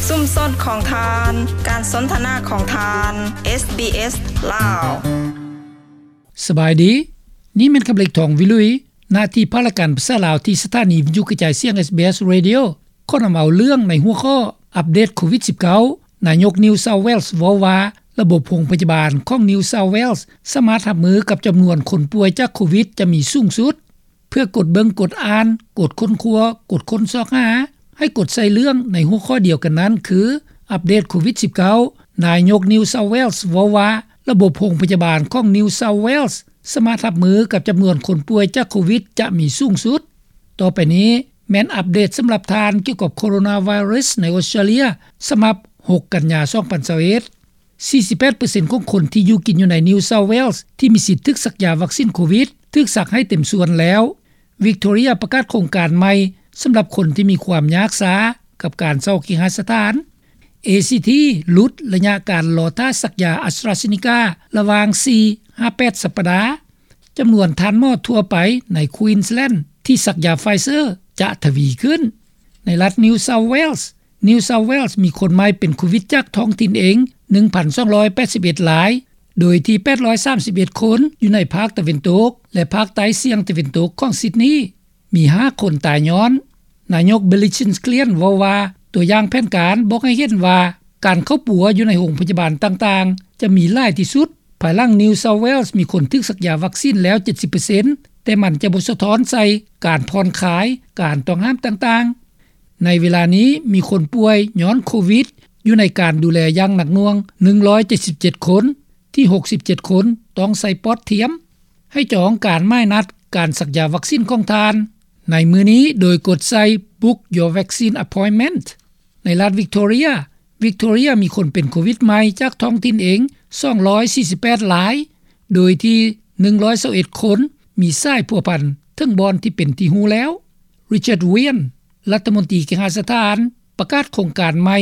ຊຸມຊົນຂອງທ່ານ, ການສົນທະນາຂອງທ່ານ, ເອສບີເອສ ລາວ. ສະບາຍດີ, ນີ້ແມ່ນຄຳເລັກ ທອງວິລຸຍ, ໜ້າທີ່ພາກລາຍການພາສາລາວ ທີ່ສະຖານີວິທະຍຸກະຈາຍສຽງ ເອສບີເອສ Radio ຂໍນຳເອົາເລື່ອງໃນຫົວຂໍ້ ອັບເດດໂຄວິດສິບເກົ້າ, ນາຍົກ New South Wales ເວົ້າວ່າ ລະບົບໂຮງພະຍາບານຂອງ New South Wales ສາມາດຮັບມືກັບຈຳນວນຄົນປ່ວຍຈາກໂຄວິດຈະມີສູງສຸດ. ເພື່ອກົດເບິ່ງ, ກົດອ່ານ, ກົດຄົ້ນຄວ້າ, ກົດຄົ້ນຊອກຫາ, ໃຫ້ກົດໃສ່ເລື່ອງໃນຫົວຂໍ້ດຽວກັນນັ້ນ ຄື ອັບເດດໂຄວິດສິບເກົ້າ, ນາຍົກ New South Wales ເວົ້າວ່າ ລະບົບໂຮງພະຍາບານຂອງ New South Wales ສາມາດຮັບມືກັບຈຳນວນຄົນປ່ວຍຈາກໂຄວິດຈະມີສູງສຸດ. ຕໍ່ໄປນີ້ແມ່ນອັບເດດສຳລັບທ່ານກ່ຽວກັບໂຄໂຣນາໄວຣັສໃນອົດສະຕຣາເລຍ ສຳລັບຫົກກັນຍາ ສອງພັນຊາວເອັດ. ສີ່ສິບແປດເປີເຊັນຂອງຄົນທີ່ຢູ່ກິນຢູ່ໃນ New South Wales ທີ່ມີສິດຖືກສັກຢາວັກຊິນໂຄວິດ ຖືກສັກໃຫ້ເຕັມສ່ວນແລ້ວ. Victoria ປະກາດໂຄງການໃໝ່ສຳລັບຄົນທີ່ມີຄວາມຍາກຊ້າກັບການເຊົ່າເຄຫະສະຖານ. ເອຊີທີ ຫຼຸດໄລຍະການລໍຖ້າສັກຢາ AstraZeneca ລະຫວ່າງສີ່ຫາແປດສັບປະດາ. ຈຳນວນທ່ານໝໍທົ່ວໄປໃນ Queensland ທີ່ສັກຢາ Pfizer ຈະທະວີຂຶ້ນ. ໃນລັດ New South Wales, New South Wales ມີຄົນໃໝ່ເປັນໂຄວິດຈາກທ້ອງຖິ່ນເອງ ໜຶ່ງພັນສອງຮ້ອຍແປດສິບເອັດລາຍ, ໂດຍທີ່ແປດຮ້ອຍສາມສິບເອັດຄົນຢູ່ໃນພາກຕາເວັນຕົກ ແລະ ພາກໃຕ້ສ່ຽງຕາເວັນຕົກຂອງ Sydney ມີຫ້າຄົນຕາຍຍ້ອນ. ນາຍົກ Billy Chisland ເວົ້າວ່າ ຕົວຢ່າງແຜນການບອກໃຫ້ເຫັນວ່າ ການເຂົ້າປົວຢູ່ໃນໂຮງພະຍາບານຕ່າງໆ ຈະມີຫຼາຍທີ່ສຸດ ພາຍຫຼັງ New South Wales ມີຄົນຖືກສັກຢາວັກຊິນແລ້ວ ເຈັດສິບເປີເຊັນ, ແຕ່ມັນຈະບໍ່ສະທ້ອນໃສ່ການຜ່ອນຄາຍການຕ້ອງຫ້າມຕ່າງໆ. ໃນເວລານີ້ ມີຄົນປ່ວຍຍ້ອນໂຄວິດຢູ່ໃນການດູແລຢ່າງໜັກໜ່ວງ ໜຶ່ງຮ້ອຍເຈັດສິບເຈັດຄົນ, ທີ່ຫົກສິບເຈັດຄົນຕ້ອງໃສ່ປອດທຽມ. ໃຫ້ຈອງການໝາຍນັດການສັກຢາວັກຊິນຂອງທ່ານໃນມື້ນີ້ ໂດຍກົດໃສ່ Book Your Vaccine Appointment. ໃນລັດ Victoria, Victoria ມີຄົນເປັນໂຄວິດໃໝ່ຈາກທ້ອງຖິ່ນເອງ ສອງຮ້ອຍສີ່ສິບແປດລາຍ, ໂດຍທີ່ ໜຶ່ງຮ້ອຍຊາວເອັດຄົນ ມີສາຍພົວພັນເຖິງບ່ອນທີ່ເປັນທີ່ຮູ້ແລ້ວ. Richard Wynne ລັດຖະມົນຕີເຄຫະສະຖານ ປະກາດໂຄງການໃໝ່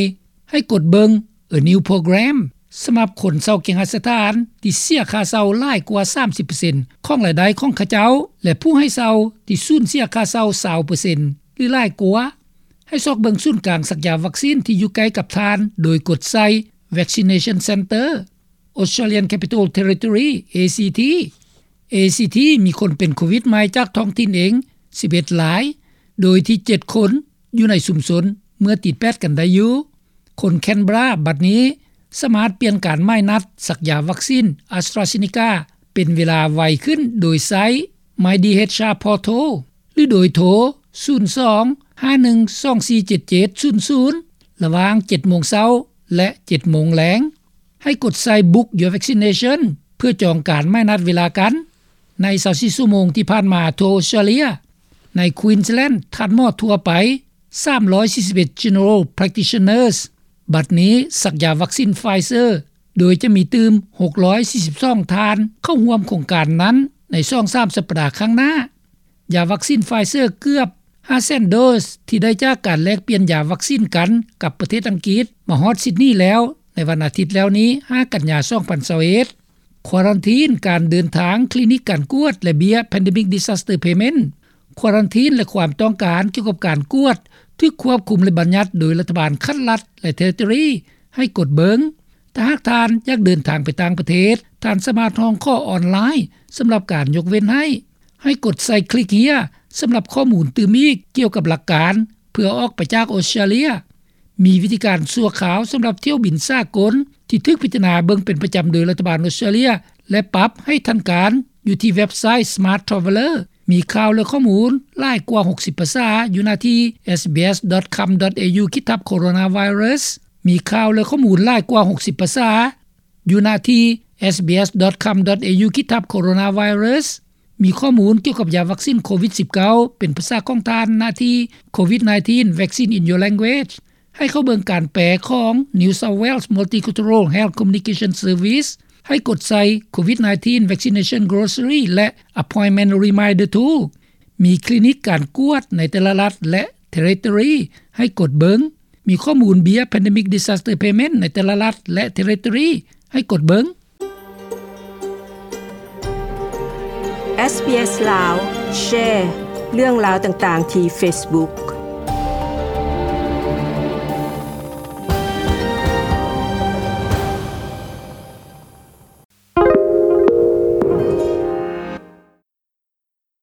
ໃຫ້ກົດເບິ່ງ A New Program ສຳລັບຄົນເຊົ່າເຄຫະສະຖານທີ່ເສຍຄ່າເຊົ່າຫຼາຍກວ່າສາມສິບເປີເຊັນຂອງລາຍໄດ້ຂອງເຂົາເຈົ້າ ແລະ ຜູ້ໃຫ້ເຊົ່າທີ່ສູນເສຍຄ່າເຊົ່າຊາວເປີເຊັນ ຫຼື ຫຼາຍກວ່າ. ໃຫ້ຊອກເບິ່ງສູນກາງສັກຢາວັກຊິນທີ່ຢູ່ໃກ້ກັບທ່ານ ໂດຍກົດໃສ່ Vaccination Centre. Australian Capital Territory, ACT. ACT ມີຄົນເປັນໂຄວິດໃໝ່ຈາກທ້ອງຖິ່ນເອງ ສິບເອັດລາຍ, ໂດຍທີ່ເຈັດຄົນຢູ່ໃນຊຸມຊົນເມື່ອຕິດແປດກັນໄດ້ຢູ່. ຄົນ Canberra ບັດນີ້ສາມາດປ່ຽນການໝາຍນັດສັກຢາວັກຊິນ AstraZeneca ເປັນເວລາໄວຂຶ້ນໂດຍໃຊ້ MyDHR Portal ຫຼື ໂດຍໂທ ສູນສອງ ຫ້າໜຶ່ງ ສອງສີ່ເຈັດເຈັດສູນສູນ ລະຫວ່າງເຈັດໂມງເຊົ້າ ແລະ ເຈັດໂມງແລງ. ໃຫ້ກົດໃສ່ Book Your Vaccination ເພື່ອຈອງການໝາຍນັດເວລາກັນ. ໃນຊາວສີ່ຊົ່ວໂມງທີ່ຜ່ານມາ ທົ່ວ Australia, ໃນ Queensland ທ່ານໝໍທົ່ວໄປ ສາມຮ້ອຍສີ່ສິບເອັດ General Practitioners ບັດນີ້ສັກຢາວັກຊິນ Pfizer ໂດຍຈະມີຕື່ມ ຫົກຮ້ອຍສີ່ສິບສອງ ທ່ານເຂົ້າຮ່ວມໂຄງການນັ້ນໃນສອງສາມສັບປະດາຂ້າງໜ້າ. ຢາວັກຊິນ Pfizer ເກືອບ ຫ້າແສນໂດສ ທີ່ໄດ້ຈາກການແລກປ່ຽນຢາວັກຊິນກັນກັບປະເທດອັງກິດ ມາຮອດ Sydney ແລ້ວ ໃນວັນອາທິດແລ້ວນີ້ ຫ້າກັນຍາ ສອງພັນຊາວເອັດ. ຄວາຣັນທີນການເດີນທາງ, ຄລີນິກການກວດ ແລະ ເບ້ຍ Pandemic Disaster Payment. ຄວາຣັນທີນ ແລະ ຄວາມຕ້ອງການກ່ຽວກັບການກວດ ຖືກຄວບຄຸມ ແລະ ບັນຍັດໂດຍລັດຖະບານຂັ້ນລັດ ແລະ Territory ໃຫ້ກົດເບິ່ງ. ຖ້າຫາກທ່ານຢາກເດີນທາງໄປຕ່າງປະເທດ, ທ່ານສາມາດຮ້ອງຂໍອອນລາຍສຳລັບການຍົກເວັ້ນໃຫ້. ໃຫ້ກົດໃສ່ Click Here ສຳລັບຂໍ້ມູນຕື່ມອີກກ່ຽວກັບຫຼັກການເພື່ອອອກໄປຈາກອົດສະຕຣາເລຍ. ມີວິທີການຊົ່ວຄາວສຳລັບຖ້ຽວບິນສາກົນທີ່ຖືກພິຈາລະນາເບິ່ງເປັນປະຈຳໂດຍລັດຖະບານອົດສະຕຣາເລຍ ແລະ ປັບໃຫ້ທັນການຢູ່ທີ່ເວັບໄຊ Smart Traveller. ມີຂ່າວ ແລະ ຂໍ້ມູນຫຼາຍກວ່າຫົກສິບພາສາຢູ່ໜ້າທີ່ SBS.com.au ຂີດທັບ Coronavirus. ມີຂ່າວ ແລະ ຂໍ້ມູນຫຼາຍກວ່າຫົກສິບພາສາຢູ່ໜ້າທີ່ SBS.com.au ຂີດທັບ Coronavirus. ມີຂໍ້ມູນກ່ຽວກັບຢາວັກຊິນໂຄວິດສິບເກົ້າ ເປັນພາສາຂອງທ່ານ ໜ້າທີ່ COVID nineteen Vaccine in Your Language. ໃຫ້ເຂົ້າເບິ່ງການແປຂອງ New South Wales Multicultural Health Communication Service. ໃຫ້ກົດໃສ່ COVID nineteen Vaccination Glossary ແລະ Appointment Reminder Tool. ມີຄລີນິກການກວດໃນແຕ່ລະລັດ ແລະ Territory ໃຫ້ກົດເບິ່ງ. ມີຂໍ້ມູນເບ້ຍ Pandemic Disaster Payment ໃນແຕ່ລະລັດ ແລະ Territory ໃຫ້ກົດເບິ່ງ. SBS ລາວ ແຊເລື່ອງລາວຕ່າງໆທີ່ Facebook.